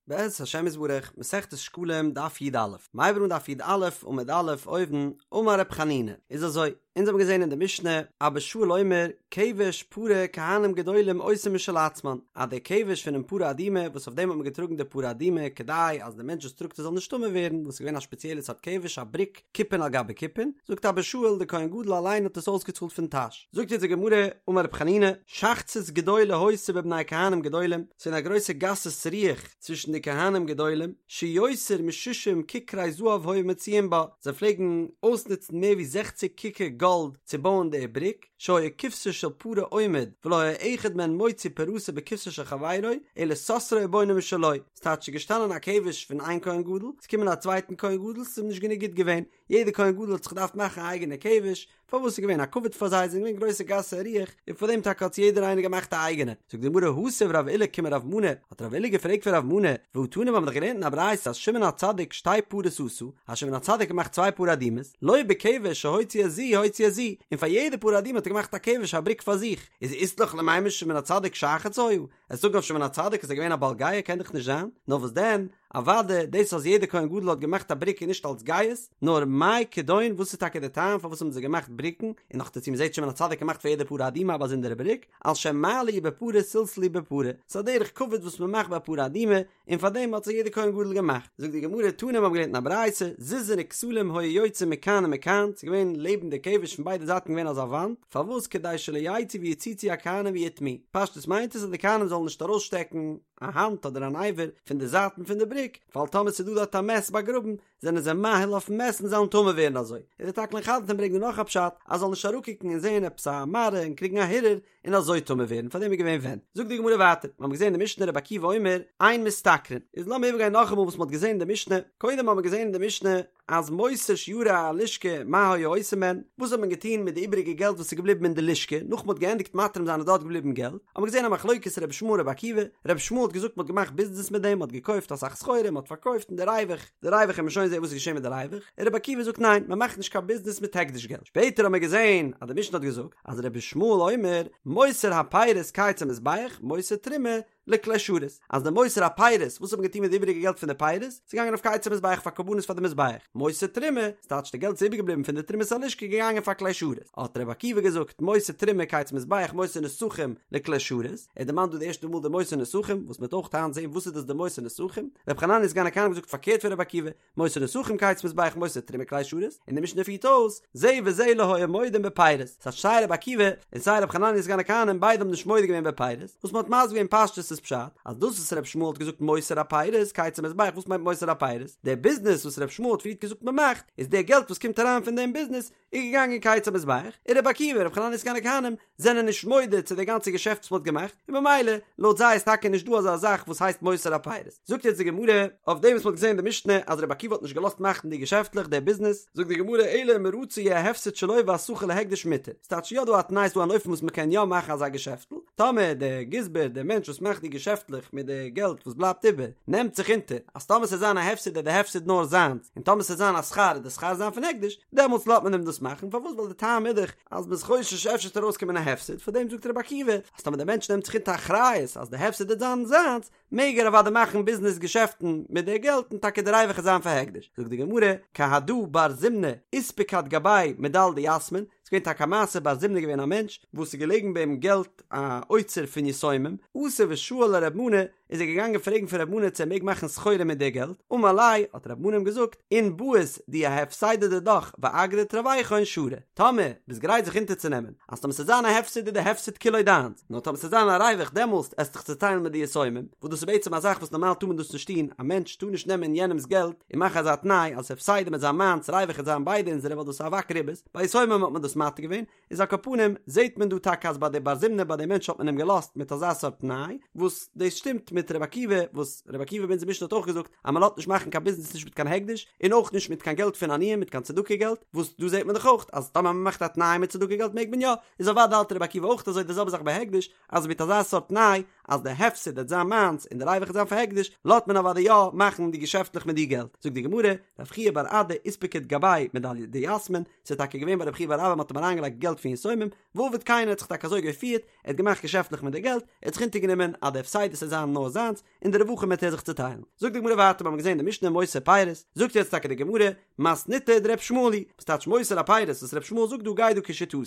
בעזרת השם יתברך, מסכת שקלים, דף י"א, מ'הייבט אן דף י"א עמוד א', אויבן, אמר רב חנינא, איז אזוי, אונז האבן געזען אין די משנה, אבא שאול אומר, כבש פרה כהנים גדולים עושים משל עצמן, אז דער כבש פונעם פרה אדומה, וואס אויף דעם האט מען געטראגן די פרה אדומה, כדי אז דער מענטש וואס טראגט עס זאל נישט טמא ווערן, וואס איז געווען א שפעציעלע סארט כבש, א בריק, כיפין על גבי כיפין, זאגט אבא שאול, דער כהן גדול אליין האט עס אויסגעצאלט פון טאש. זאגט אונז די גמרא, אמר רב חנינא, שחצית גדולה היתה בבני כהנים גדולים, ס'איז געווען א גרויסע גסות רוח צווישן די כהנים גדולים, שיותר משישים ככרי זהב היו מוציאין בה, זיי פלעגן אויסנוצן מער ווי זעכציג כיכר גאלד צו בויען די בריק, שהיה כבשה של פרה עומד, ולא היה אחד מהן מוציא פרתו בכבשה של חברו, אלא סותרו ובונה משלו, ס'טייטש ס'איז געשטאנען א כבש פון איין כהן גדול, ס'איז געקומען א צווייטן כהן גדול, ס'איז אים נישט גענוג גוט געווען, יעדער כהן גדול האט זיך געדארפט מאכן א אייגענע כבש, פארוואס ס'איז געווען א כבוד פאר זיי, זיי זענען געווען גרויסע גסי רוח, און פאר דעם טאקע האט יעדער איינער געמאכט א אייגענע. זאגט די גמרא התיב רב עולא קומי רב מנא, האט רב עולא געפרעגט פון רב מנא, והא תנא מיר האבן דאך געלערנט אין א ברייתא אז שמעון הצדיק שתי פרות עשה, אז שמעון הצדיק האט געמאכט צוויי פרה אדומות, לא בכבש שהוציא את זו הוציא את זו, און פאר יעדע פרה אדומה האט ער געמאכט א כבש א בריק פאר זיך, איז אית לך למימר שמעון הצדיק שחץ היה? וועסט זאגן אויף שמעון הצדיק אז ער איז געווען א בעל גאוה קען דאך נישט זיין, נאר וואס דען, אוודאי דאס אז יעדער כהן גדול האט געמאכט א בריק איז נישט אלס גאות, נאר מאי כדון וואס איז טאקע די טעם פארוואס האבן זיי געמאכט בריקן, און נאכדערצו מ'זעט שמעון הצדיק געמאכט פאר יעדע פרה אדומה א באזונדערע בריק, על שם מה לי בפרה סלסלו בפרה, ס'איז א דרך כבוד וואס מ'מאכט ביי פרה אדומה, און פאר דעם האט זיך יעדער כהן גדול געמאכט. זאגט די גמרא, תנא מיר האבן געלערנט אין א ברייתא, זיזין וכתלים היו יוצאין מכאן ומכאן, ס'איז געווען לעבן די כבש פון ביידע זייטן געווען אזא וואנט, פארוואס כדי שלא יצאו ויציצו הכהנים ויטמאו, פשטות מיינט עס אז די כהנים זאלן נישט ארויסשטעקן א האנט אדער אן אבר פון די זייטן פון די בריק, ווייל טאמער ס'איז דא דארט א מת באגראבן, זענען זיי מאהיל אויפן מת און זיי וועלן טמא ווערן אזוי. און די תקלין חדתין ברענגט דא נאך א פשט, אז זאל נישט אראפקוקן און זעהן עפעס א מראה און קריגן א הרהור, און אזוי טמא ווערן, פאר דעם איז געווען ווענט. זאגט די גמרא ווייטער, מיר האבן געזען אין די משנה רבי עקיבא אומר, אין משתכרין. איז לאמיר איבערגיין נאכאמאל וואס מען האט געזען אין די משנה, קודם האבן מיר געזען אין די משנה אז מותר שיירי הלשכה מה היו עושים בהן, וואס האט מען געטון מיט די איבעריגע געלט וואס איז געבליבן אין די לשכה, נאך מען האט געענדיגט מתרים זיין איז דארט געבליבן געלט, האבן מיר געזען א מחלוקת רבי ישמעאל רבי עקיבא, רבי ישמעאל האט געזאגט מען האט געמאכט ביזנעס מיט דעם, מען האט געקויפט אסאך סחורה, מען האט פארקויפט און די ריווח, די ריווח וועט מען שוין זען וואס איז געשען מיט די ריווח, און רבי עקיבא זאגט ניין, מען מאכט נישט קיין ביזנעס מיט הקדש געלט, שפעטער האבן מיר געזען אז די משנה האט געזאגט אז רבי ישמעאל אומר מותר הפירות קיץ המזבח מותר תרומה לכלי שרת, אז די מותר הפירות, וואס האט מען געטון מיט די איבעריגע געלט פון די פירות? ס'איז געגאנגען אויף קיץ המזבח פאר קרבנות פאר די מזבח, מותר תרומה, ס'טייטש די געלט איז איבערגעבליבן פון די תרומת הלשכה געגאנגען פאר כלי שרת, האט רבי עקיבא געזאגט מותר תרומה קיץ המזבח מותר נסכים לכלי שרת, ער דערמאנט דא די ערשטע מאל די מותר נסכים, וואס מ'וועט אויך היינט זען וואס איז דאס די מותר נסכים, רבי חנניה סגן הכהנים האט געזאגט פארקערט פון רבי עקיבא, מותר נסכים קיץ מזבח מותר תרומה כלי שרת, און די משנה פירט אויס, זה וזה לא היו מודים בפירות, ס'הייסט סיי רבי עקיבא און סיי רבי חנניה סגן הכהנים ביידע האבן נישט מודה געווען בפירות, וואס מ'האט מסביר געווען פשטות איז פשט, אז דאס וואס רבי ישמעאל האט געזאגט מותר הפירות קיץ המזבח וואס מיינט מותר הפירות? דער ביזנעס וואס רבי ישמעאל האט פריערט געזאגט מ'מאכט, איז דער געלט וואס קומט אריין פון דעם ביזנעס, איז געגאנגען קיץ המזבח, און רבי עקיבא און רבי חנניה סגן הכהנים זענען נישט מודה צו די גאנצע געשעפט וואס מ'האט געמאכט, און במילא לויט זיי איז טאקע נישט דא אזא זאך וואס הייסט מותר הפירות. זאגט יעצט די גמרא, אויף דעם וואס מ'האט געזען אין די משנה אז רבי עקיבא האט נישט געלאזט מאכן די געשעפטלעך, די ביזנעס, זאגט די גמרא, אלא אם רצה יהא הפסד שלו והשכר להקדש מותר, ס'טייטש יא דא א תנאי ס'דא אן אופן וואס מ'קען יא מאכן אזא געשעפטל, טאמער דער גזבר, דער מענטש וואס מאכט די געשעפטלעך מיט די געלט וואס בלייבט איבער, נעמט זיך אונטער אז טאמער ס'זאל זיין א הפסד וועט די הפסד נאר זיינס, און טאמער ס'זאל זיין א שכר וועט די שכר זיין פון הקדש, דעמאלטס לאזט מען אים דאס מאכן, פארוואס? ווייל די טעם איז דאך אז מ'איז חושש אפשר וועט ארויסקומען א הפסד, פאר דעם זאגט רבי עקיבא אז טאמער דער מענטש נעמט זיך אונטער אחריות אז די הפסד וועט זיין זיינס, מעג ער אוודאי מאכן ביזנעס געשעפטן מיט די געלט און טאקע די ריווח וועט זיין פאר הקדש. זאגט די גמרא, כי הדא בר זימנא אספקת גביה מדל דיתמין, ס'איז געווען טאקע א מעשה בר זימנא געווען א מענטש וואס איז געלעגן ביי אים געלט א אוצר פון יתומים, אתא ושאל לרב מנא, איז ער געגאנגען פרעגן פון רב מנא צו ער מעג מאכן סחורה מיט די געלט, אמר ליה, האט רב מנא אים געזאגט, אין בעית דיהא הפסידא דידך ואגרא דתרוויכון שרי, טאמער ביסט גרייט זיך אונטערצונעמען אז טאמער ס'וועט זיין א הפסד איז די הפסד כולו דיינס, נאר טאמער ס'וועט זיין א ריווח דעמאלסט עסט דיך צוטיילן מיט די יתומים, וואס דאס איז בעצם א זאך וואס נארמאל טאר מען דאס נישט טון, א מענטש טאר נישט נעמען יענעמ'ס געלט און מאכן אזא תנאי אז הפסידא וועט זיין מיינס ריווח וועט זיין ביידע אונזערע ווייל דאס איז אבק ריבית, ביי יתומים האט מען דאס מתיר געווען, איז על כל פנים זעהט מען דא טאקע אז ביי די בר זימנא ביי די מענטש האט מען אים געלאזט מיט אזא סארט תנאי, וואס דאס שטימט מיט ר' עקיבא וואס ר' עקיבא ביי אונזער משנה האט אויך געזאגט אז מען לאזט נישט מאכן קיין ביזנעס נישט מיט קיין הקדש און אויך נישט מיט קיין געלט פון עניים מיט קיין צדקה געלט, וואס דא זעהט מען דאך אויך אז טאמער מען מאכט א תנאי מיט צדקה געלט מעג מען יא, איז אוודאי האלט ר' עקיבא אויך אזוי די זעלבע זאך ביי הקדש אז מיט אזא סארט תנאי אז די הפסד וועט זיין מיינס און די ריווח וועט זיין פאר הקדש לאזט מען אוודאי יא מאכן די געשעפטלעך מיט די געלט, זאגט די גמרא, רב חייא בר אדא אספקת גביה מדל דיתמין, ס'איז טאקע געווען ביי רב חייא בר אבא מ'האט אים. האט אים אריינגעלייגט געלט פון יתומים, ועבד כן ער האט זיך טאקע אזוי געפירט, ער האט געמאכט געשעפטלעך מיט די געלט, ער האט זיך אונטערגענומען אז די הפסדות וועט זיין נאר זיינס, און די רווחים וועט ער זיך צוטיילן. זאגט די גמרא ווייטער, מיר האבן געזען די משנה מותר פירות, זאגט יעצט טאקע די גמרא, מתניתא דר' ישמעאל היא, וואס טייטש מותר הפירות וואס ר' ישמעאל זאגט דא גייט דא כשיטתו,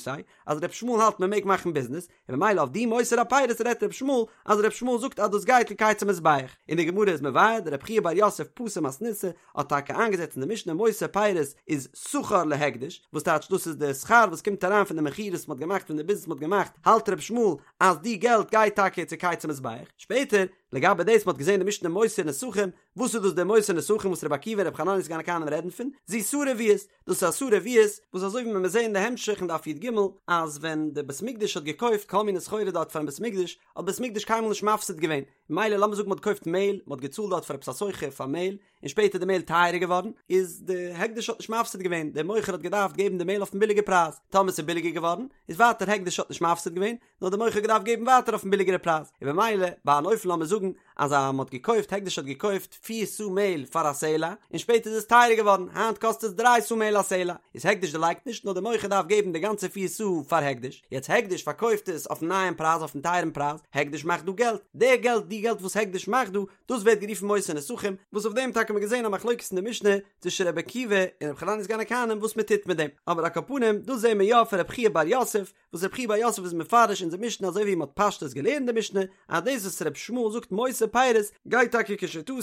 אז ר' ישמעאל האלט מען מעג מאכן ביזנעס, און ממילא אויף די מותר הפירות רעדט ר' ישמעאל אז ר' ישמעאל זאגט אז דאס גייט לקיץ המזבח, און די גמרא איז מבאר דרב חייא בר יוסף פתר מתניתא האט טאקע איינגעזעצט אין די משנה מותר פירות איז שכר להקדש, וואס טייטש דאס איז די שכר וואס קומט אריין פון די מכירות וואס מ'האט געמאכט פון די ביזנעס מ'האט געמאכט, האלט ר' ישמעאל אז די געלט גייט טאקע צו קיץ המזבח, שפעטער לגבי דאס מ'האט געזען די משנה מותר נסכים, וואס איז דאס די מותר נסכים וואס רבי עקיבא און רבי חנניה סגן הכהנים רעדן פון? זו שערה רביעית, דאס איז א שערה רביעית, וואס אזוי ווי מיר זעהן אין די המשך אין דף י"ג, אז ווען די בית מקדש האט געקויפט כל מיני סחורה דארט פארן בית מקדש, האט בית מקדש קיינמאל נישט מפסיד געווען, מילא לאמיר זאגן מ'האט געקויפט מעהל, מ'האט געצאלט דארט פאר עפעס א סוחר פאר מעהל, און שפעטער איז די מעהל טייערער געווארן, איז די הקדש האט נישט מפסיד געווען, דער מוכר האט געדארפט געבן די מעהל אויפן ביליגע פרייז, טאמער ס'איז ביליגער געווארן, איז ווייטער הקדש האט נישט מפסיד געווען, נאר דער מוכר האט געדארפט געבן ווייטער אויפן ביליגערע פרייז, און במילא ביי אן אופן לאמיר זאגן אז א מ'האט געקויפט הקדש האט געקויפט פיר סאה מעהל פאר א סלע, און שפעטער איז עס טייערער געווארן, היינט קאסט עס דריי סאה מעהל א סלע, איז הקדש דערלייגט נישט נאר דער מוכר דארף געבן די גאנצע פיר סאה פאר הקדש, יעצט הקדש פארקויפט עס אויפן נייעם פרייז אויפן טייערן פרייז, הקדש מאכט דא געלט, די געלט די געלט וואס הקדש מאכט דא, דאס ווערט גערופן מותר נסכים, וואס אויף דעם טאקע האט מען געזען א מחלוקת אין די משנה צווישן רבי עקיבא און רבי חנניה סגן הכהנים וואס מען טוט מיט דעם, אבער על כל פנים דאס זעהן מיר יא פון רבי חייא בר יוסף, וואס רבי חייא בר יוסף איז מפרש אונזער משנה אזוי ווי מען האט פשטות געלערנט די משנה, אז דאס וואס רבי ישמעאל זאגט מותר פירות גייט טאקע כשיטתו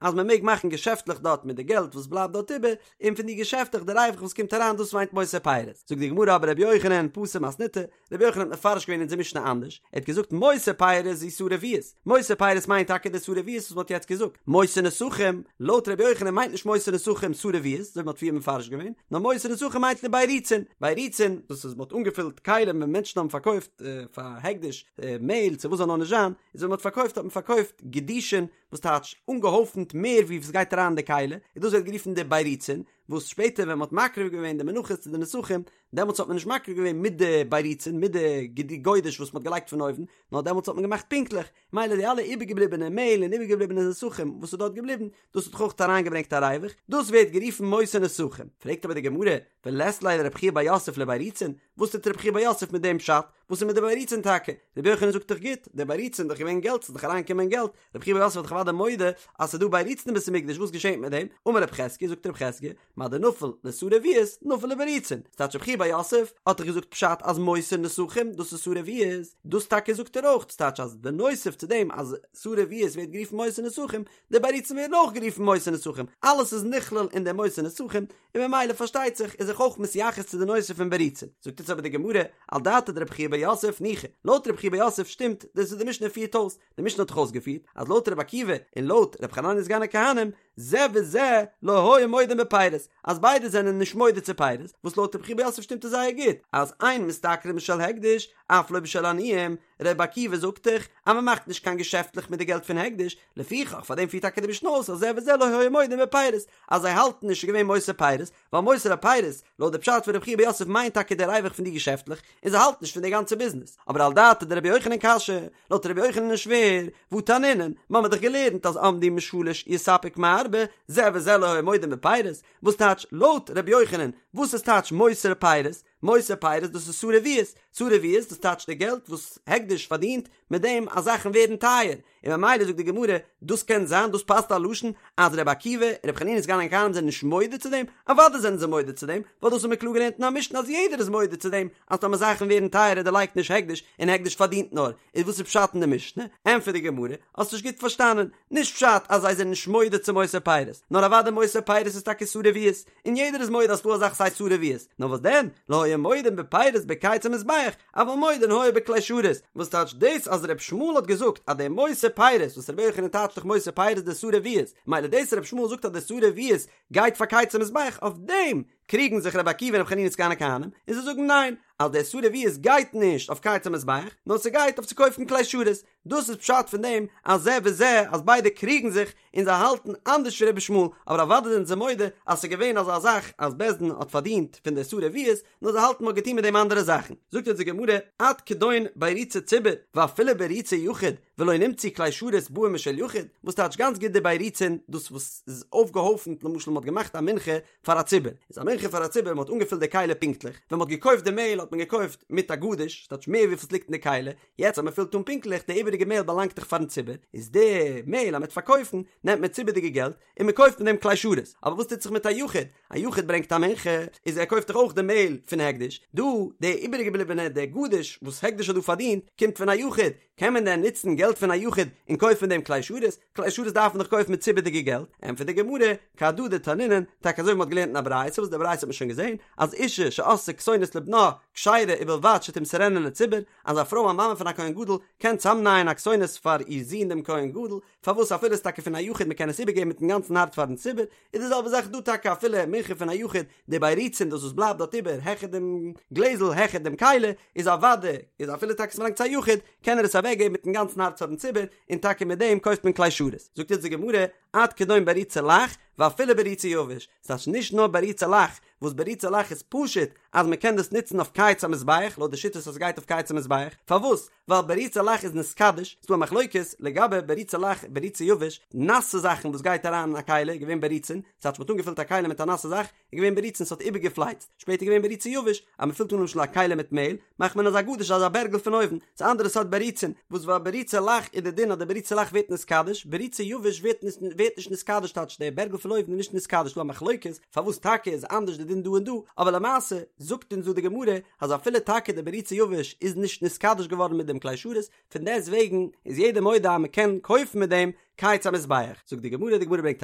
אז מען מעג מאכן געשעפטלעך דארט מיט די געלט וואס בלייבט דארט איבער, און פון די געשעפטלעך די ריווח וואס קומט אריין דאס מיינט מותר פירות. זאגט די גמרא אבער רבי יוחנן פתר מתניתא, רבי יוחנן האט מפרש געווען אונזער משנה אנדערש, ער האט געזאגט מותר פירות זו שערה רביעית, מותר פירות מיינט טאקע די שערה רביעית וואס מען האט יעצט געזאגט, מותר נסכים, לויט רבי יוחנן מיינט נישט מותר נסכים שערה רביעית, אזוי ווי מען האט פריער מפרש געווען, נאר מותר נסכים מיינט לבירוצין, בירוצין, דאס איז מען האט אנגעפילט כלים ווען מענטשן האבן פארקויפט פאר הקדש מעהל צו וואס זאל נאר נישט זיין, איז ווען מען האט פארקויפט האט מען פארקויפט גדישין, וואס טייטש אנגעהויפנט מער ווי וואס גייט אריין אין די כלי, און דאס ווערט גערופן די בירוצין, וואס שפעטער ווען מען האט מקריב געווען די מנחות צו די נסכים, דעמאלטס האט מען נישט מקריב געווען מיט די בירוצין, מיט די גודש וואס מען האט געלייגט פון אויבן, נאר דעמאלטס האט מען געמאכט פונקטליך, מילא די אלע איבערגעבליבענע מעהל און איבערגעבליבענע נסכים וואס איז דארט געבליבן, דאס האט דאך אויך אריינגעברענגט א ריווח, דאס ווערט גערופן מותר נסכים. פרעגט אבער די גמרא, ולית ליה לרב חייא בר יוסף לבירוצין, וואס טוט רב חייא בר יוסף מיט דעם פשט? וואס איז מיט די בירוצין טאקע? רבי יוחנן זאגט דאך גוט, די בירוצין איז דאך געווען געלט, ס'איז דאך אריינגעקומען געלט, רב חייא בר יוסף איז דאך אוודאי מודה אז ס'איז דא בירוצין אין בית המקדש, וואס געשענט מיט דעם? אמר רב חזקיה, זאגט רב חזקיה, מה דנפיל לשערה רביעית, נפיל לבירוצין. ס'טייטש רב חייא בר יוסף האט דאך געזאגט פשט אז מותר נסכים דאס איז שערה רביעית, דאס טאקע זאגט ער אויך, ס'טייטש אז בנוסף צו דעם אז שערה רביעית ווערט גערופן מותר נסכים, די בירוצין ווערן אויך גערופן מותר נסכים, אלעס איז נכלל אין די מותר נסכים, און ממילא פארשטייט זיך איז זיך אויך מתייחס צו די נושא פון בירוצין. זאגט יעצט אבער די גמרא, על דעתיה דרב חייא בר יוסף ניחא, לויט רב חייא בר יוסף שטימט דאס וואס די משנה פירט אויס, די משנה האט דאך אויסגעפירט אז לויט רבי עקיבא און לויט רבי חנניה סגן הכהנים, זה וזה לא היו מודים בפירות, אז ביידע זענען נישט מודה צו פירות, וואס לויט רבי חייא בר יוסף שטימט עס זייער גוט, אז אין משתכרין בשל הקדש, אף לא בשל עניים, רבי עקיבא זאגט דאך אז מען מאכט נישט קיין געשעפטלעך מיט די געלט פון הקדש, לפיכך פאר דעם פירט טאקע די משנה אויס אז זה וזה לא היו מודים בפירות, אז זיי האלטן נישט ס'איז געווען מותר פירות, ווייל מותר הפירות, לויט די פשט פון רבי חייא בר יוסף מיינט טאקע די ריווח פון די געשעפטלעך, און זיי האלטן נישט פון די גאנצע ביזנעס. אבער על דעתיה דרבי יוחנן קשיא, לויט רבי יוחנן איז שווער, והא תנינן, מ'האמיר דאך געלערנט אז עמדו משלש יספק מארבע, זה וזה לא היו מודים בפירות, וואס טייטש לויט רבי יוחנן, וואס איז טייטש מותר פירות? מותר פירות דאס איז שערה רביעית, שערה רביעית דאס טייטש די געלט וואס הקדש פארדינט מיט דעם אז זאכן ווערן טייער, און ממילא זאגט די גמרא, דאס קען זיין, דאס פאסט א לשון אז רבי עקיבא און רבי חנינא סגן הכהנים זענען נישט מודה צו דעם, אוודאי זענען זיי מודה צו דעם, ווייל דאס האט מען קלאר געלערנט אין א משנה אז יעדער איז מודה צו דעם אז טאמער זאכן ווערן טייערער דערלייגט נישט הקדש און הקדש פארדינט נאר, איז וואס איז פשט אין די משנה? ענטפערט די גמרא, האסט נישט גוט פארשטאנען, נישט פשט אז זיי זענען נישט מודה צו מותר פירות, נאר אוודאי מותר פירות איז טאקע שערה רביעית, און יעדער איז מודה אז ס'דא אזאך ס'הייסט שערה רביעית, נאר וואס דען, לא היו מודים בפירות בקיץ המזבח, אבל מודין היו בכלי שרת, וואס טייטש דאס אז ר' ישמעאל האט געזאגט אז די מותר פירות וואס רבי יוחנן טייטשט דאך מותר פירות די שערה רביעית, מילא דאס ר' ישמעאל זאגט אז די שערה רביעית גייט פאר קיץ המזבח אויף דעם קריגן זיך רבי עקיבא און רבי חנינא סגן הכהנים און זיי זאגן ניין אז די שערה רביעית גייט נישט אויף קיץ המזבח נאר ס'גייט אויף צו קויפן כלי שרת, דאס איז פשט פון דעם אז זה וזה אז ביידע קריגן זיך און זיי האלטן אנדערש ווי רבי ישמעאל, אבער אוודאי זענען זיי מודה אז ס'איז געווען אזא זאך אז בית דין האט פארדינט פון די שערה רביעית, נאר זיי האלטן מ'האט געטון מיט דעם אנדערע זאכן. זאגט אונז די גמרא, עד כדון בירוצי ציבור, ואפילו בירוצי יחיד, ולא נמצאו כלי שרת באים משל יחיד, וואס טייטש גאנץ גוט די בירוצין, דאס וואס איז אויפגעהויפנט למשל מ'האט געמאכט א מנחה פאר א ציבור, איז א מנחה. מנחה פאר א ציבור, מען האט אנגעפילט די כלי פונקטליך, ווען מען האט געקויפט די מעהל האט מען געקויפט מיט א גדיש, ס'טייטש מער וויפיל ס'ליגט אין די כלי, יעצט אז מען פילט אן פונקטליך, די איבעריגע מעהל באלאנגט דאך פארן ציבור, איז די מעהל אז מען וועט פארקויפן, נעמט מען ציבור'דיגע געלט, און מען קויפט מיט דעם כלי שרת, אבער וואס טוט זיך מיט א יחיד? א יחיד ברענגט א מנחה, איז ער קויפט דאך אויך די מעהל פון הקדש, דא די איבערגעבליבענע די גדיש וואס הקדש האט דא פארדינט, קומט פון א יחיד, קען מען דען נוצן געלט פון א יחיד און קויפן מיט דעם כלי שרת? כלי שרת דארף מען דאך קויפן מיט ציבור'דיגע געלט, ענטפערט די גמרא, כהדא דתנינן, טאקע אזוי ווי מ'האט געלערנט אין א ברייתא, וואס די ברייתא האט מען שוין געזען, אז אישה שעשתה כתונת לבנה כשרה ובלבד שתמסרנה לציבור, אז א פרוי א מאמע פון א כהן גדול קען צאמנייען א כתונת פאר איר זון דעם כהן גדול, פארוואס אפילו איז טאקע פון א יחיד מ'קען עס איבערגעבן מיטן גאנצן הארץ פארן ציבור, איז די זעלבע זאך דא טאקע אפילו מנחה פון א יחיד, די בירוצין דאס וואס בלייבט דארט איבער העכער דעם גלעזל העכער דעם כלי, איז אוודאי איז אפילו טאקע ס'באלאנגט צו א יחיד, קען ער עס אוועקגעבן מיטן גאנצן הארץ פארן ציבור, און טאקע מיט דעם קויפט מען כלי שרת. זאגט יעצט די גמרא, עד כדון בריצי לח, ואפילו בריצי יבש, ס'טייטש נישט נאר בריצי לח, וואס בריצי לח איז פשוט אז מ'קען דאס נוצן אויף קיץ המזבח, לויט די שיטות אז ס'גייט אויף קיץ המזבח, פארוואס? ווייל בריצי לח איז נתקדש, ס'דא א מחלוקת לגבי בריצי לח בריצי יבש, נאסע זאכן וואס גייט אריין אין א כלי איז געווען בריצין, ס'טייטש מ'האט אנגעפילט א כלי מיט א נאסע זאך, איז געווען בריצין ס'האט איבערגעפלייצט, שפעטער איז געווען בריצי יבש, אז מ'פילט אן למשל א כלי מיט מעהל, מאכט מען אזא גדיש אזא בערגל פון אויבן, ס'איז א אנדערע סארט בריצין, וואס ביי בריצי לח איז די דין אז די בריצי לח ווערט נתקדש, בריצי יבש ווערט ווערט נישט נתקדש טייטש די בערגל פון אויבן איז נישט נתקדש, ס'דא א מחלוקת פארוואס טאקע איז אנדערש די דין דא און דא, אבער למעשה זאגט אונז דא די גמרא אז אפילו טאקע די בריצי יבש איז נישט נתקדש געווארן מיט דעם כלי שרת, פון דעסט וועגן איז יעדער מודה אז מען קען קויפן מיט דעם קיץ המזבח. זאגט די גמרא, די גמרא ברענגט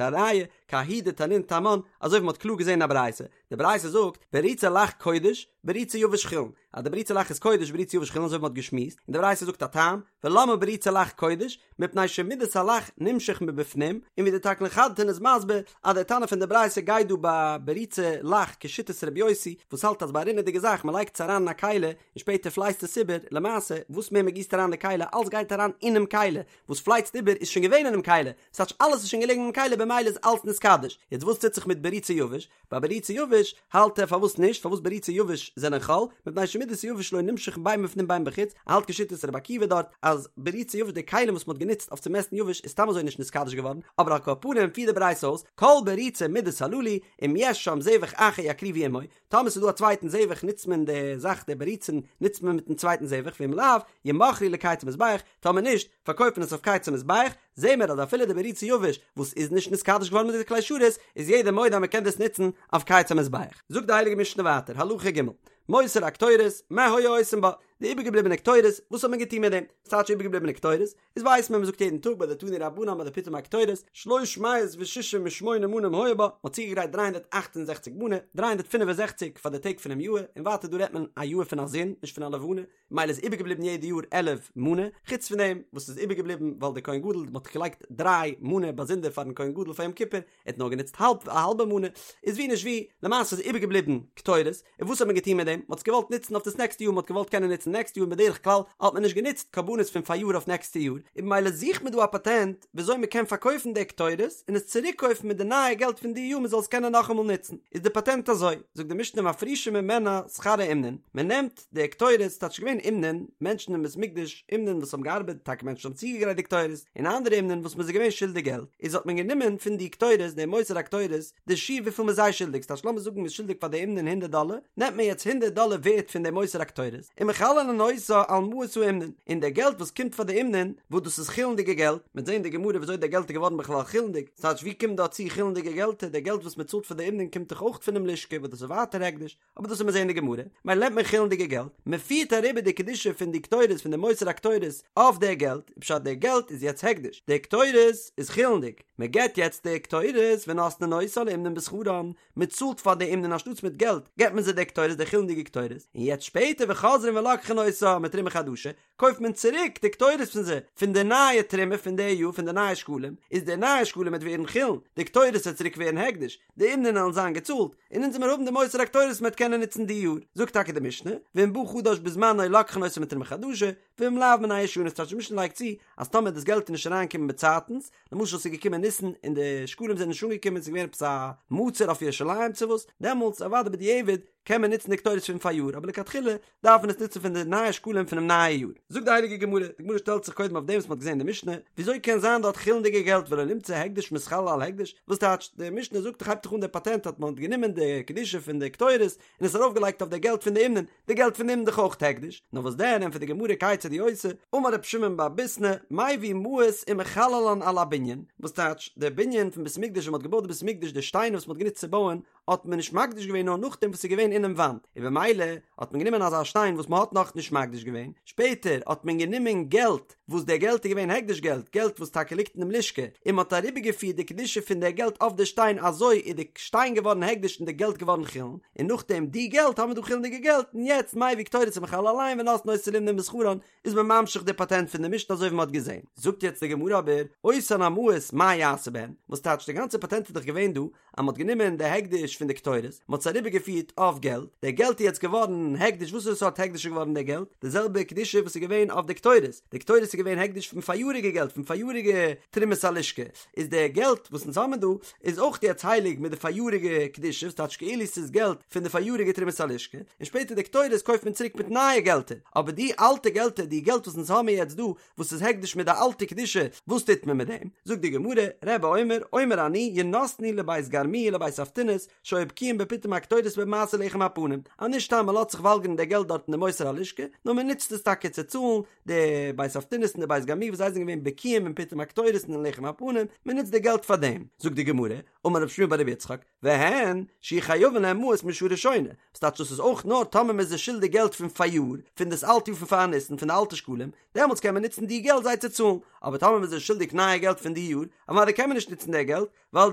א ראיה, כי ההיא דתנין תמן, אזוי ווי מען האט קלאר געזען אין א ברייתא, די ברייתא זאגט, בריצי לח קודש, בריצי יבש חולין, אז די בריצי לח איז קודש בריצי יבש חולין אזוי ווי מען האט געשמועסט, און די ברייתא זאגט א טעם, ולמה בריצי לח קודש, מפני שמידת הלח נמשך מבפנים, און ווי די תקלין חדתין איז מסביר אז דער תנא פון די ברייתא גייט דא ביי בריצי לח כשיטת רבי יוסי וואס האלט אז ביי א רינעדיגע זאך מען לייגט עס אריין אין א כלי און שפעטער פלייצט עס איבער, למעשה וואס מער מען גיסט אריין די כלי אלס גייט אריין אינעם כלי, וואס פלייצט איבער איז שוין געווען אינעם כלי, ס'טייטש אלעס איז שוין געלעגן אינעם כלי במילא איז אלס נתקדש, יעצט וואס טוט זיך מיט בריצי יבש? ביי בריצי יבש האלט ער פארוואס נישט פארוואס בריצי יבש זענען חול מפני שמידת היבש לא נמשך בין מבפנים בין מבחוץ ער האלט כשיטת רבי עקיבא דארט אז בריצי יבש די כלים וואס מ'האט גענוצט אויף צו מעסטן יבש איז סתם אזוי נישט נתקדש געווארן אבער על כל פנים פירט די ברייתא אויס כל בריצי מידות הללו אם יש שם זבח אחר יקריבו עמו טאמער ס'איז דא א צווייטן זבח נוצט מען די זאך די בריצין נוצט מען מיטן צווייטן זבח ואם לאו ימכרו לקיץ המזבח טאמער נישט פארקויפט מען עס אויף קיץ המזבח זעהן מיר אז אפילו די בריצי יבש וואס איז נישט נתקדש געווארן מיט די כלי שרת איז יעדער מודה אז מען קען דאס נוצן אויף קיץ המזבח. זאגט די הייליגע משנה ווייטער הלכה ג' מותר הקטורת מה היו עושים בה, די איבערגעבליבענע קטורת וואס האט מען געטון מיט דעם? וואס טייטש איבערגעבליבענע קטורת? איז ווייסט מען מען זאגט יעדן טאג ביי די תנו רבנן ביי די פיטום הקטורת שלוש מאות ושישים ושמונה מנים היו בה, מען האט צוגעגרייט 368 מנה, 365 פאר די טעג פונעם יאר, און ווייטער דא רעדט מען א יאר פון א זון נישט פון א לבנה, מילא איז איבערגעבליבן יעדע יאר 11 מנה, חוץ פון דעם וואס איז איבערגעבליבן ווייל דער כהן גדול מ'האט געלייגט דריי מנה באזונדער פארן כהן גדול פאר יום כיפור, ער האט נאר גענוצט האלב א האלבע מנה, איז ווי נישט ווי, למעשה איז איבערגעבליבן קטורת, און וואס האט מען געטון מיט דעם? מ'האט עס געוואלט נוצן אויף דאס נעקסטע יאר, מ'האט געוואלט קענען נוצן נעקסטע יאר און בדרך כלל האט מען נישט גענוצט קרבנות פון פאריאר אויף נעקסטע יאר, און במילא זוכט מען דא א פאטענט וויאזוי מ'קען פארקויפן די קטורת און עס צוריקקויפן מיט די נייע געלט פון די יאר מ'זאל עס קענען נאכאמאל נוצן, איז די פאטענט אזוי, זאגט די משנה מפרישין ממנה שכר האומנין, מ'נעמט די קטורת ס'טייטש געווען אומנין, מענטשן אין בית מקדש, אומנין וואס האבן געארבעט, טאקע מענטשן האבן צוגעגרייט די קטורת, און אנדערע אומנין וואס מ'איז זיי געווען שולדיג געלט, איז האט מען גענומען פון די קטורת, די מותר הקטורת, די שיעור וויפיל מ'איז זיי שולדיג, ס'טייטש לאמיר זאגן מ'איז שולדיג פאר די אומנין הונדערט דאלער, נעמט מען יעצט הונדערט דאלער ווערט פון די מותר הקטורת, ומחללין אותה על מעות האומנין, און די געלט וואס קומט פאר די אומנין, וואס דאס איז חולין'דיגע געלט, מ'וועט זען אין די גמרא וויאזוי די געלט איז געווארן בכלל חולין'דיג, ס'טייטש ווי קומט דא צו חולין'דיגע געלטער, די געלט וואס מ'צאלט פאר די אומנין קומט דאך אויך פונעם לשכה וואס דאס איז ווייטער הקדש, אבער דאס וועט מען זעהן אין די גמרא, מילא נעמט מען חולין'דיגע געלט, מען פירט אריבער די קדושה פון די קטורת פון די מותר הקטורת אויף די געלט, פשט די געלט איז יעצט הקדש, די קטורת איז חולין'דיג, מען געבט יעצט די קטורת ונותנין אותה לאומנין בשכרן, מען צאלט פאר די אומנין אנשטאטס מיט געלט געבט מען זיי די קטורת די חולין'דיגע קטורת, און יעצט שפעטער וחוזרין ולוקחין אותה מתרומה חדשה, קויפט מען צוריק די קטורת פון זיי, פון די נייע תרומה פון די יאר פון די נייע שקלים, איז די נייע שקלים וועט ווערן חולין, די קטורת וועט צוריק ווערן הקדש, די אומנין וועלן זיין געצאלט, און אונז וועמיר האבן די מותר הקטורת מ'וועט קענען נוצן די יאר, זאגט טאקע די משנה, ואם בא חדש בזמנו לוקחין אותו מתרומה חדשה, ואם לאו מן הישנות, טייטש די משנה לייגט צו, אז טאמער דאס געלט איז נישט אריינגעקומען באצייטנס, למשל ס'איז געקומען ניסן און די שקלים זענען נישט אנגעקומען, ס'איז געווען עפעס א מצור אויף ירושלים צו וואס, דעמאלטס אוודאי בדיעבד. קען מען נוצן די קטורת פון פאריאר, אבער לכתחילה דארף מען עס נוצן פון די נייע שקלים פונעם נייע יאר. זאגט די הייליגע גמרא, די גמרא שטעלט זיך קודם אויף דעם וואס מען האט געזען אין די משנה, וויאזוי קען זיין דארט חולין'דיגע געלט ולא נמצא הקדש מתחלל על הקדש, וואס טייטש, די משנה זאגט דאך הייבט דאך אן די פאטענט אז מען האט גענומען די קדושה פון די קטורת און עס ארויפגעלייגט אויף די געלט פון די אומנין, די געלט פון די אומנין דאך אויך הקדש, נאר וואס דען ענטפערט די גמרא כיצד הוא עושה, אמר רב שמעון בר ביסנא, מביא מעות ומחללן על הבנין, וואס טייטש, די בנין פון בית מקדש ווען מען האט געבויט די בית מקדש די שטיינער וואס מען האט גענוצט צו בויען האט מען נישט מקדיש געווען נאר נאכדעם וואס ס'איז געווען אינעם וואנט, און במילא האט מען גענומען אזא שטיין וואס מען האט נאכנישט מקדיש געווען, שפעטער האט מען גענומען געלט וואס דער געלט איז געווען הקדש געלט, געלט וואס טאקע ליגט אינעם לשכה, און מען האט אריבערגעפירט די קדושה פון דער געלט אויף די שטיין אזוי איז די שטיין געווארן הקדש און די געלט געווארן חולין, און נאכדעם די געלט האבן מיר דא חולין'דיגע געלט, און יעצט מביא קטורת ומחלל עליהן ונותנין אותה לאומנין בשכרן, איז מען ממשיך די פאטענט פון די משנה אזוי ווי מען האט געזען. זאגט יעצט די גמרא אבער, אותן המעות מה יעשה בהן, וואס טייטש די גאנצע פאטענט איז דאך געווען דא אז מען האט גענומען די הקדש פון די קטורת, מען האט עס אריבערגעפירט אויף געלט, די געלט איז יעצט געווארן הקדש, וואסערע סארט הקדש איז געווארן די געלט? די זעלבע קדושה וואס איז געווען אויף די קטורת, די קטורת איז געווען הקדש פון פאריאריגע געלט, פון פאריאריגע תרומת הלשכה, איז די געלט וואס אונז האבן דא איז אויך יעצט הייליג מיט די פאריאריגע קדושה, וואס טייטש כאילו ס'איז געלט פון די פאריאריגע תרומת הלשכה, און שפעטער די קטורת קויפט מען צוריק מיט נייע געלטער, אבער די אלטע געלטער, די געלט וואס אונז האבן יעצט דא, וואס איז הקדש מיט די אלטע קדושה, וואס טוט מען מיט דעם? זאגט די גמרא, רבי אומר, אומר אני, ינתנו לבית גרמו ולבית אבטינס, שהיו בקיאים בפיטום הקטורת ובמעשה לחם הפנים, אז נישט סתם מען לאזט זיך וואלגערן די געלט דארט אין די מותר הלשכה, נאר מען נוצט עס טאקע צו צאלן די בית אבטינס און די בית גרמו וואס זיי זענען געווען בקיאים אין פיטום הקטורת און אין לחם הפנים, מען נוצט די געלט פאר דעם. זאגט די גמרא, אמר רב שמואל בר רבי יצחק, והן, שיהו חייבין להם מעות משעה ראשונה, וואס טייטש דאס איז אויך נאר טאמער מען איז זיי שולדיג געלט פון פאריאר, פון דאס אלטע יאר פון פאר ניסן, פון די אלטע שקלים, דעמאלטס קען מען נוצן די געלט זיי צו צאלן, אבער טאמער מען איז זיי שולדיג נייע געלט פון די יאר, אוודאי קען מען נישט נוצן די געלט, ווייל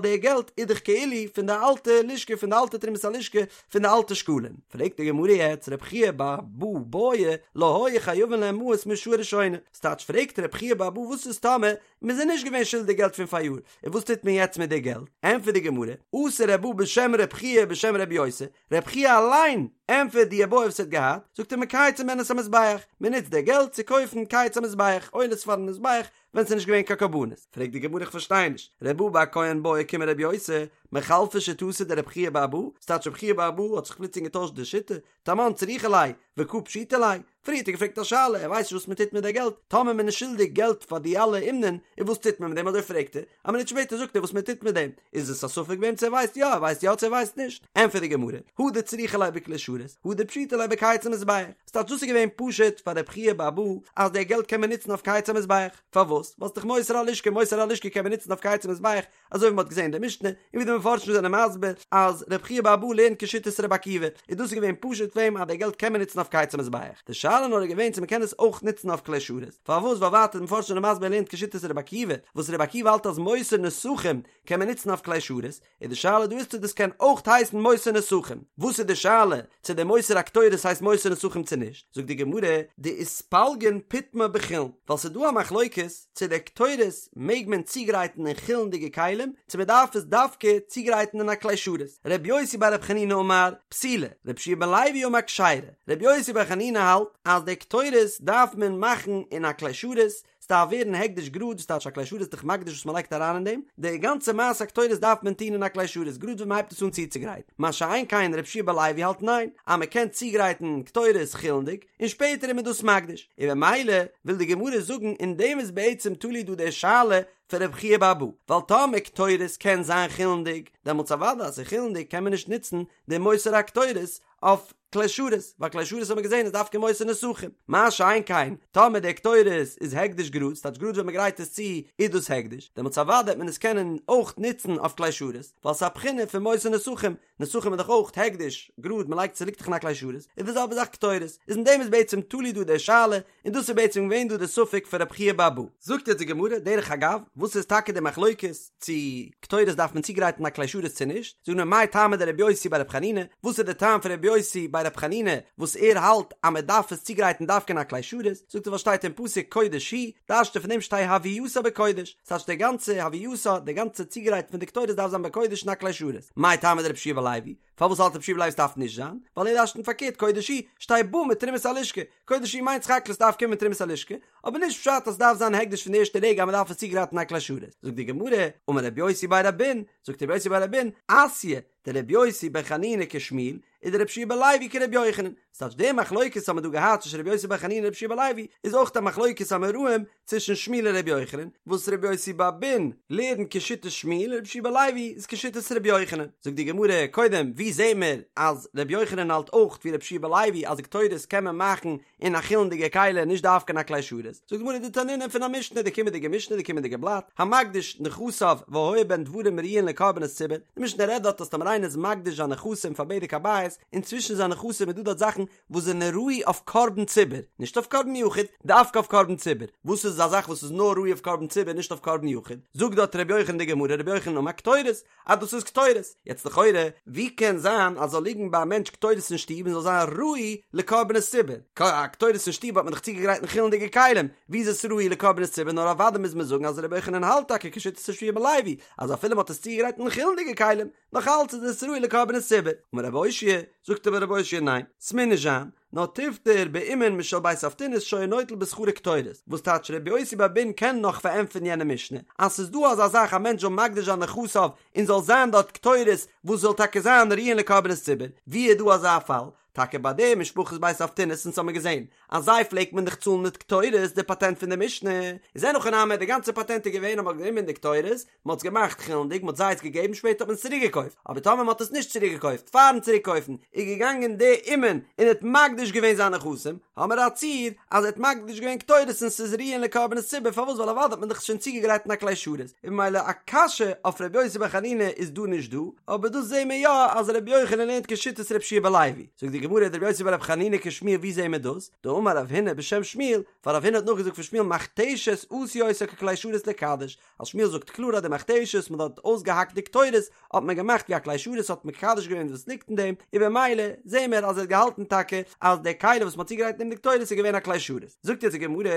די געלט איז דאך כאילו פון די אלטע לשכה, פון די אלטע תרומת הלשכה, פון די אלטע שקלים. פרעגט די גמרא יעצט, רב חייא בר אבא בעי לא היו חייבין להם מעות משעה ראשונה, ס'טייטש פרעגט רב חייא בר אבא וואס איז טאמער מען איז נישט געווען שולדיג געלט פון פאריאר, און וואס טוט מען יעצט מיט די געלט? ענטפערט די גמרא, אתא רב בא בשם רב חייא בשם רבי יוסי, רב חייא אליין ענטפערט די איבעיא וואס ער האט געהאט, זאגט ער מקייצין בהן את המזבח, מען נוצט די געלט צו קויפן קיץ המזבח, עולות פארן מזבח, ווען ס'איז נישט געווען קיין קרבנות. פרעגט די גמרא איך פארשטיי נישט, רב בא בר כהן בעי קומי רבי יוסי, מחלפא שיטתיה דרב חייא בר אבא, ס'טייטש רב חייא בר אבא האט זיך פלוצלינג געטוישט די שיטה, תמן צריכא ליה, וקא פשיטא ליה, פריער האט ער געפרעגט א שאלה, ער ווייסט נישט וואס מען טוט מיט די געלט, טאמער מען איז שולדיג געלט פאר די אלע אומנין, און וואס טוט מען מיט דעם אזוי פרעגט ער, א מינוט שפעטער זאגט ער וואס מען טוט מיט דעם, איז עס א ספק ביי אים צו ער ווייסט יא, ער ווייסט יא צו ער ווייסט נישט, ענטפערט די גמרא, הא דצריכא ליה בכלי שרת, הא דפשיטא ליה בקיץ המזבח, ס'טייטש דאס איז געווען פשוט פאר רב חייא בר אבא אז די געלט קען מען נוצן אויף קיץ המזבח, פארוואס? ווייל ס'דאך מותר הלשכה, מותר הלשכה קען מען נוצן אויף קיץ המזבח, אזוי ווי מ'האט געזען אין די משנה, און ווי די מפרשים זענען מסביר אז ר' חייא בר אבא לערנט כשיטת ר' עקיבא, און דאס איז געווען פשוט פאר אים אז די געלט קען מען נוצן אויף קיץ המזבח, די שאלה נאר איז געווען צו מ'קען עס אויך נוצן אויף כלי שרת, פארוואס ווייל ווייטער די מפרשים זענען מסביר ער לערנט כשיטת ר' עקיבא, וואס ר' עקיבא האלט אז מותר נסכים קען מען נוצן אויף כלי שרת, איז די שאלה דא איז צו דאס קען אויך הייסן מותר נסכים, וואס איז די שאלה צו די מותר הקטורת הייסט מותר נסכים צו נישט, זאגט די גמרא, דאיתפלגון פיטמה בחולין, ווייל ס'איז דא א מחלוקת צו די קטורת מעג מען צוגרייטן אין חולין'דיגע כלים, צו מען דארף עס דווקא צוגרייטן אין א כלי שרת, ר' יוסי בר ר' חנינא אמר, פסולה, ר' יהושע בן לוי אמר כשרה, ר' יוסי בר חנינא האלט אז די קטורת דארף מען מאכן אין א כלי שרת, ס'דארף ווערן הקדש גראד, וואס טייטש א כלי שרת איז דאך מקדיש וואס מ'לייגט אריין אין דעם, די גאנצע מעשה הקטורת דארף מען טון אין א כלי שרת גראד ווען מ'הייבט עס אן צוצוגרייטן, מה שאין כן ר' יהושע בן לוי האלט ניין, אז מ'קען צוגרייטן קטורת חולין'דיג, און שפעטער איז מען דאס מקדיש, און במילא וויל די גמרא זאגן אין דעם איז בעצם תלוי דא די שאלה פון רב חייא בר אבא, ווייל טאמער קטורת קען זיין חולין'דיג, דעמאלטס אוודאי אז ס'איז חולין'דיג קען מען נישט נוצן די מותר הקטורת אויף כלי שרת, ווייל כלי שרת האט מען געזען איז דווקא מותר נסכים, מה שאין כן טאמער די קטורת איז הקדש גראד, ס'טייטש גראד ווען מ'גרייט עס צו איז דאס הקדש, דעמאלטס אוודאי וועט מען עס קענען אויך נוצן אויף כלי שרת, ווייל ס'איז א בחינה פון מותר נסכים, נסכים איז דאך אויך הקדש גראד מ'לייגט ס'ליגט דאך אין א כלי שרת, איז די זעלבע זאך קטורת, איז אין דעם איז בעצם תלוי דא די שאלה, און דאס איז בעצם געווען דא די ספק פון רב חייא בר אבא. זאגט יעצט די גמרא, דרך אגב, וואס איז טאקע די מחלוקת צו קטורת דארף מען צוגרייטן א כלי שרת צו נישט, זאגט מען מאי טעמא דרבי יוסי בר רב חנינא, וואס איז די טעם פון רבי יוסי בר רב חנינא וואס ער האלט אז מען דארף עס צוגרייטן דווקא אין א כלי שרת, זאגט ער ווייל שטייט אין פסוק קודש היא, דרש'ט ער פון דעם שתהא הוייתה בקודש, ס'טייטש די גאנצע הוייתה, די גאנצע צוגרייט פון די קטורת דארף זיין בקודש אין א כלי שרת, מאי טעמא דרבי יהושע בן לוי, פארוואס האלט רבי יהושע בן לוי ס'דארף נישט זיין? ווייל ער דרש'נט פארקערט קודש היא, שתהא באה מתרומת הלשכה, קודש היא מיינט סך הכל ס'דארף קומען מתרומת הלשכה, אבער נישט פשט אז ס'דארף זיין הקדש פון די ערשטע רגע אז מ'דארף עס צוגרייטן א כלי שרת. זאגט די גמרא, אמר רבי יוסי בר אבין, זאגט רבי יוסי בר אבין, אתיא דרבי יוסי בר חנינא כשמואל, ודרבי יהושע בן לוי כרבי יוחנן, ס'טייטש די מחלוקת האט מען דא געהאט צווישן רבי יוסי בר חנינא און רבי יהושע בן לוי איז אויך א מחלוקת אמוראים צווישן שמואל און רבי יוחנן, וואס רבי יוסי בר אבין לערנט כשיטת שמואל און רבי יהושע בן לוי איז כשיטת רבי יוחנן. זאגט די גמרא, קודם ווי זעהן מיר אז רבי יוחנן האלט אויך ווי רבי יהושע בן לוי אז די קטורת קען מען מאכן אין א חולין'דיגע כלי נישט דווקא אין א כלי שרת, זאגט די גמרא דתנינא פון א משנה די קומענדיגע משנה די קומענדיגע בלאט, המקדיש נכסיו והיה בהן דברים ראויין לקרבנות ציבור, די משנה רעדט דארט אז טאמער איינער איז מקדיש זיין נכסים פאר בדק הבית, און צווישן זיין נכסים איז דא דארט זאכן וואס זענען ראוי אויף קרבן ציבור, נישט אויף קרבן יחיד, דווקא אויף קרבן ציבור, וואס איז א זאך וואס איז נאר ראוי אויף קרבן ציבור נישט אויף קרבן יחיד, זאגט דארט ר' יוחנן די גמרא ר' יוחנן אמר קטורת, אז דאס איז קטורת, יעצט לכאורה ווי קען זיין אז זאל ליגן ביי א מענטש קטורת אין שטוב און זאל זיין ראוי לקרבנות ציבור, א קטורת אין שטוב האט מען דאך צוגעגרייט אין חולין'דיגע כלים, ווי איז עס ראוי לקרבנות ציבור, נאר אוודאי מוז מען זאגן אז ר' יוחנן האלט טאקע כשיטת ר' יהושע בן לוי אז אפילו מען האט עס צוגעגרייט אין חולין'דיגע כלים, נאך אלץ איז עס ראוי לקרבנות ציבור. אמר רב אושעיא, זאגט אבער רב אושעיא ניין, ס'מוז נישט זיין, נאר תיפטר באומן משל בית אבטינס שהיה נוטל בשכרו קטורת, וואס טייטש רבי יוסי בר אבין קען נאך פארענטפערן יענע משנה, אז ס'איז דא אזא זאך א מענטש זאל מקדיש זיין נכסיו און זאל זיין דארט קטורת וואס זאל טאקע זיין ראויין לקרבנות ציבור, ווי איז דא אזא פאל? טאקע ביי די משפחת בית אבטינס אונז האמיר געזען אז זיי פלעגט מען דאך צאלן מיט קטורת די פאטענט פון די משנה איז אין הכי נמי די גאנצע פאטענט איז געווען אז מ'האט גענומען די קטורת מ'האט עס געמאכט חולין'דיג מ'האט זיי עס געגעבן שפעטער האט מען עס צוריק געקויפט אבער טאמער מ'האט עס נישט צוריק געקויפט פארן צוריק קויפן איז געגאנגען די אומן און האט מקדיש געווען זיינע נכסים האמיר א ציור אז ער האט מקדיש געווען קטורת און ס'איז ראויין לקרבנות ציבור פארוואס ווייל אוודאי האט מען דאך שוין צוגעגרייט אין א כלי שרת און ממילא א קשיא אויף ר' יוסי בר חנינא איז דא נישט דא אבער דאס זעהן מיר יא אז ר' יוחנן לערנט כשיטת ר' יהושע בן לוי זאגט די גמרא דר' יוסי בר' חנינא כשמואל ווי זעהן מיר דאס דאמר רב הונא בשם שמואל ווייל רב הונא האט נאכגעזאגט פון שמואל מכתשת עשו אותה ככלי שרת לקדש אז שמואל זאגט קלאר אז די מכתשת מען האט אויסגעהאקט די קטורת האט מען געמאכט ווי א כלי שרת האט מקדש געווען וואס ליגט אין דעם, און במילא זעהן מיר אז ער האט געהאלטן טאקע אז די כלי וואס מען האט צוגעגרייט אין דעם די קטורת איז געווען א כלי שרת. זאגט יעצט די גמרא,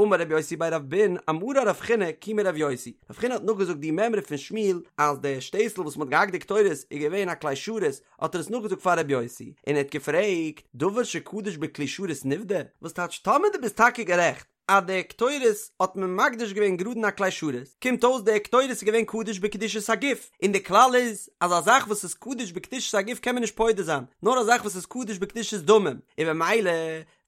אמר רבי יוסי בי רב אבין, אמרה רב חינא כי מרבי יוסי, רב חינא האט נאכגעזאגט די מימרא פון שמואל אז די שטעסל וואס מען האט געהאקט די קטורת איז געווען א כלי שרת, האט ער עס נאכגעזאגט פאר רבי יוסי, און ער האט געפרעגט, דבר שקדוש בכלי שרת נפדה? וואס טייטש טאמער דו ביסט טאקע גערעכט אז די קטורת האט מען מקדיש געווען גראד אין א כלי שרת, קומט אויס די קטורת איז געווען קדוש בקדושת הגוף, און די כלל איז אז א זאך וואס איז קדוש בקדושת הגוף קען מען נישט פודה זיין, נאר א זאך וואס איז קדוש בקדושת דמים, און במילא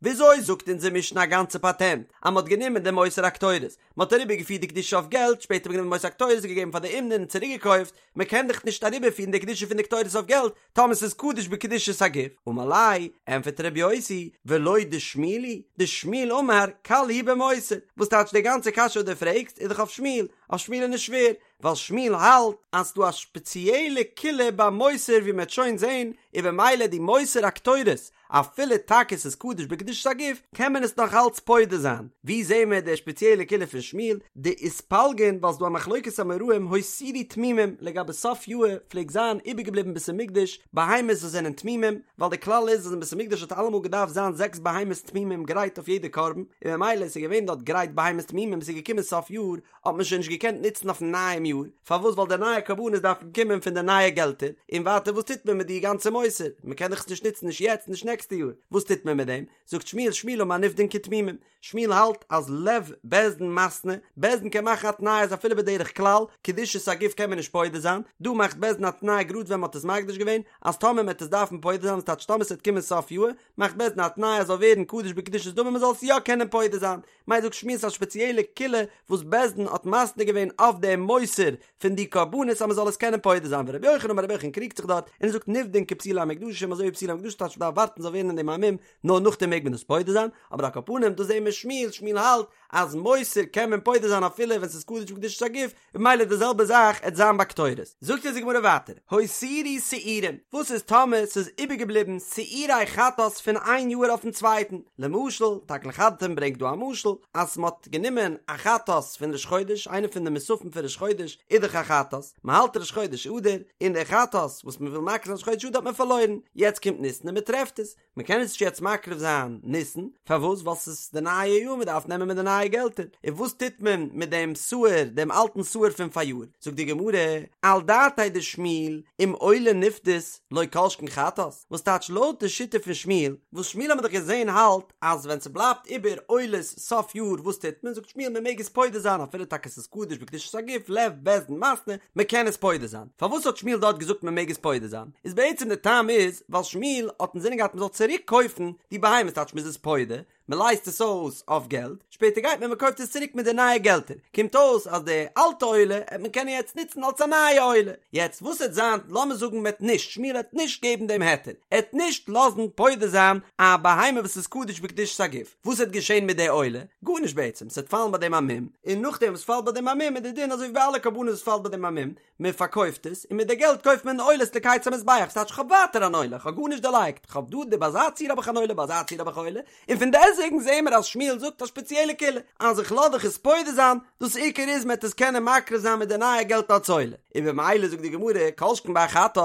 וויאזוי זאגט אונזער משנה א גאנצע פאטענט אז מען האט גענומען די מותר הקטורת, מען האט אריבערגעפירט די קדושה אויף געלט, שפעטער האט מען גענומען מותר הקטורת און געגעבן פאר די אומנין און צוריקגעקויפט, מען קען דאך נישט אריבערפירן די קדושה פון די קטורת אויף געלט, טאמער ס'איז קדוש בקדושת הגוף, אמר ליה, ענפערט ר' יוסי, ולא דשמואל היא, דשמואל אמר, קל הוא במותר, וואס טייטש די גאנצע קשיא וואס דו פרעגסט איז דאך אויף שמואל, אויף שמואל איז נישט שווער, ווייל שמואל האלט אז ס'דא א שפעציעלע קולא ביי מותר ווי מ'עט שוין זען, און במילא די מותר הקטורת, אפילו טאקע ס'איז קדוש בקדושת הגוף, קען מען עס נאך אלץ פודה זיין. ווי זעהן מיר די שפעציעלע קולא פון שמואל? דאיתפלגון ווייל ס'דא א מחלוקת אמוראים הותירו תמימים לגבי סוף יאהר פלעגט זיין איבערגעבליבן אין בית המקדש בהמות וואס זענען תמימים ווייל די כלל איז אז אין בית המקדש האט אלעמאל געדארפט זיין זעקס בהמות תמימים גרייט אויף יעדע קרבן און ממילא ס'איז געווען דארט גרייט בהמות תמימים ס'איז געקומען סוף יאר האט מען שוין נישט געקענט נוצן אויפן נייעם יאר, פארוואס ווייל די נייע קרבנות דארפן קומען פון די נייע געלטער, און ווייטער וואס טוט מען מיט די גאנצע מותר, מען קען דאך עס נישט נוצן נישט יעצט נישט נעקסטע יאר, וואס טוט מען מיט דעם, זאגט שמואל שמואל אמר נפדין כתמימים, שמואל האלט אז לב בית דין מתנה, בית דין קען מאכן א תנאי אז אפילו בדרך כלל, קדושת הגוף קען מען נישט פודה זיין, דא מאכט בית דין א תנאי גראד ווען מען האט עס מקדיש געווען, אז טאמער מען וועט עס דארפן פודה זיין, ס'טייטש טאמער ס'וועט קומען סוף יאר, מאכט בית דין א תנאי אז זאל ווערן קדוש בקדושת דמים מען זאל עס יא קענען פודה זיין, ממילא זאגט שמואל ס'איז א שפעציעלע קולא וואס בית דין האט מתנה געווען אויף דעם מותר פון די קרבנות אז מ'זאל עס קענען פודה זיין ורבי יוחנן אמר רבי יוחנן קריגט זיך דארט און ער זאגט נפדין כפסולי המוקדשים אזוי ווי פסולי המוקדשים טייטש מ'דארף ווארטן ס'זאל ווערן אין דעם א מום נאר נאכדעם מעג מען עס פודה זיין אבער על כל פנים דא זעהן מיר שמואל שמואל האלט אז מותר קען מען פודה זיין אפילו ווען ס'איז קדוש בקדושת הגוף ממילא די זעלבע זאך עט זיין ביי קטורת. זאגט אונז די גמרא ווייטער, הותירו שעירים, וואס איז טאמער ס'איז איבערגעבליבן שעירי חטאת פון איין יאהר אויפן צווייטן, למשל, תקלין חדתין ברענגט דא א משל, אז מ'האט גענומען א חטאת פון ראש חודש, איינע פון די מוספים פון ראש חודש איז דאך א חטאת, מ'האלט ראש חודש אדר, און די חטאת וואס מ'וויל מקריב זיין ראש חודש אדר האט מען פארלוירן, יעצט קומט ניסן און מ'טרעפט עס. מען קען עס נישט יעצט מקריב זיין ניסן, פארוואס? ווייל ס'איז די נייע יאר מען דארף נעמען מיט די נייע געלטער, און וואס טוט מען מיט דעם שעיר, דעם אלטן שעיר פון פאריאר? זאגט די גמרא, על דעתיה דשמואל, אם עולה נפדית לא כל שכן חטאת, וואס טייטש לויט די שיטה פון שמואל, וואס שמואל האמיר דאך געזען האלט אז ווען ס'בלייבט איבער עולות סוף יאר וואס טוט מען? זאגט שמואל מען מעג עס פודה זיין אפילו טאקע ס'איז קדוש בקדושת הגוף לב בית דין מתנה, מען קען עס פודה זיין. פארוואס האט שמואל דארט געזאגט מען מעג עס פודה זיין? איז בעצם די טעם איז ווייל שמואל האט אינזינען געהאט מען זאל צוריק קויפן די בהמה ס'טייטש מ'איז עס פודה, מען לייזט עס אויס אויף געלט, שפעטער גייט מען מען קויפט עס צוריק מיט די נייע געלטער, קומט אויס אז די אלטע עולה העט מען קענען יעצט נוצן אלס א נייע עולה, יעצט וואס העט זיין לאמיר זאגן מען העט נישט, שמואל העט נישט געבן דעם היתר, ער העט נישט לאזן פודה זיין א בהמה וואס איז קדוש בקדושת הגוף, וואס העט געשען מיט די עולה? גארנישט בעצם, ס'העט פאלן ביי דעם א מום, און נאכדעם וואס פאלט ביי דעם א מום איז די דין אזוי ווי ביי אלע קרבנות וואס פאלט ביי דעם א מום, מען פארקויפט עס, און מיט די געלט קויפט מען עולות לקיץ המזבח, ס'טייטש כ'האב ווייטער אן עולה, כ'האב גארנישט דערלייגט, כ'האב דא די ביי אזא ציור האב איך אן עולה, ביי אזא ציור האב איך א עולה, און פון דעסוועגן זעהן מיר אז שמואל זאגט א שפעציעלע קולא, אז איך לאז דיך עס פודה זיין, דאס עיקר איז מען וועט עס קענען מקריב זיין מיט די נייע געלט אלס עולה, און במילא זאגט די גמרא, כל שכן ביי א חטאת,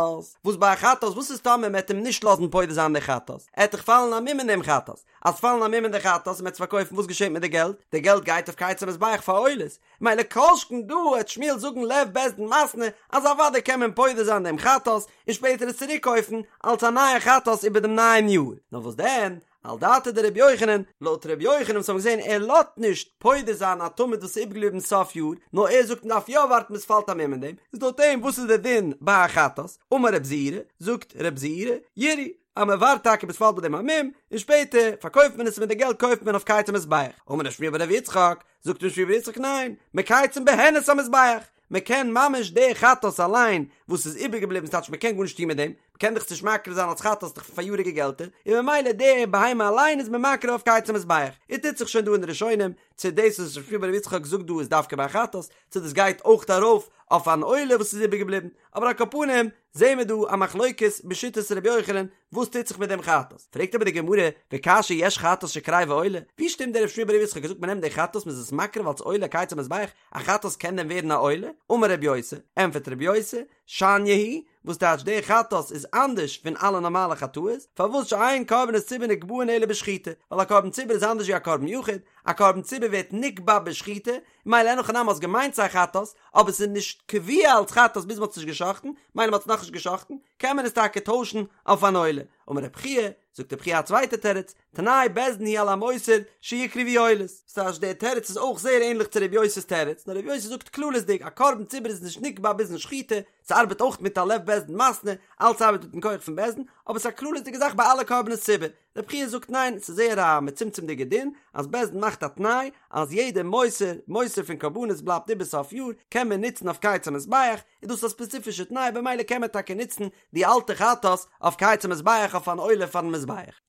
וואס ביי א חטאת, וואס איז טאמער מען וועט אים נישט לאזן פודה זיין די חטאת, עט דאך פאלן א מום אין דעם חטאת, אז פאלן א מום אין די חטאת און מען וועט עס פארקויפן וואס געשעט מיט די געלט? די געלט גייט אויף קיץ המזבח פאר עולות, מילא כל שכן דא העט שמואל זאגן לב בית דין מתנה אז אוודאי קען מען פודה זיין דעם חטאת און שפעטער עס צוריק קויפן אלס א נייע חטאת איבער דעם נייעם יאר, נאר וואס דען על דעתיה דרבי יוחנן, לויט רבי יוחנן וואס האבן געזען ער לאזט נישט פודה זיין א תמיד וואס איז איבערגעבליבן סוף יאר, נאר ער זאגט מען דארף יא ווארטן ביז ס'פאלט א מום אין דעם, איז לויט אים וואס איז דער דין ביי א חטאת? אמר רב זירא, זאגט רב זירא, ירעו, אז מען ווארט טאקע ביז ס'פאלט ביי דעם א מום, און שפעטער פארקויפט מען עס און מיט די געלט קויפט מען אויף קיץ המזבח. אמר רב שמואל בר רב יצחק, זאגט רב שמואל בר יצחק ניין, מקייצין בהן את המזבח, מען קען ממש די חטאת אליין וואס איז איבערגעבליבן ס'טייטש מען קען גארנישט טון מיט דעם, מען קען דאך עס נישט מקריב זיין אלס חטאת דאך פון פאריאריגע געלטער, און ממילא די בהמה אליין איז מען מקריב אויף קיץ המזבח. און טוט זיך שוין דא אין די ראשונים, צו דאס וואס רב שמואל בר רב יצחק זאגט דא איז דווקא ביי חטאת, צו דאס גייט אויך ארויף אויף אן עולה וואס איז איבערגעבליבן, אבער על כל פנים זעהן מיר דא א מחלוקת בשיטת ר' יוחנן וואס טוט זיך מיט דעם חטאת, פרעגט אבער די גמרא, וקשיא יש חטאת שקריבה עולה, ווי שטימט דער רב שמואל בר רב יצחק געזאגט מען נעמט די חטאת מען איז עס מקריב אלס עולה קיץ המזבח, א חטאת קען דען ווערן א עולה? אמר רב יוסי, ענפערט רב יוסי, שניא היא, וואס טייטש די חטאת איז אנדערש פון אלע נארמאלע חטאות, פארוואס שאין קרבנות ציבור נקבעין אלא בשחיטה, ווייל א קרבן ציבור איז אנדערש ווי א קרבן יחיד, א קרבן ציבור ווערט נקבע בשחיטה, מילא אין הכי נמי האסט געמיינט ס'איז א חטאת, אבער ס'איז נישט קבוע אלס חטאת ביז מ'האט עס נישט גע'שחט'ן, מילא מ'האט עס נאכנישט גע'שחט'ן, קען מען עס טאקע טוישן אויף אן עולה. אמר רב חייא, זאגט רב חייא א צווייטע תירוץ, תנאי בית דין הוא על המותר שיקרבו עולות. ס'טייטש דער תירוץ איז אויך זייער ענליך צו רב יוסי'ס תירוץ, נאר רב יוסי זאגט כללית'דיג א קרבן ציבור איז נישט נקבע ביזן שחיטה, ס'ארבעט אויך מיט א לב בית דין מתנה, אלץ ארבעט מיטן כח פון בית דין, אבער ס'איז א כללית'דיגע זאך ביי אלע קרבנות ציבור. רב חייא זאגט ניין, ס'איז זייער א מצומצם'דיגע דין, אז בית דין מאכט א תנאי אז יעדע מותר, מותר פון קרבנות בלייבט איבער סוף יאר, קען מען נוצן אויף קיץ המזבח, איז דאס א ספעציפישע תנאי במילא קען מען טאקע נוצן די אלטע חטאת אויף קיץ המזבח אויף אן עולה פארן מזבח.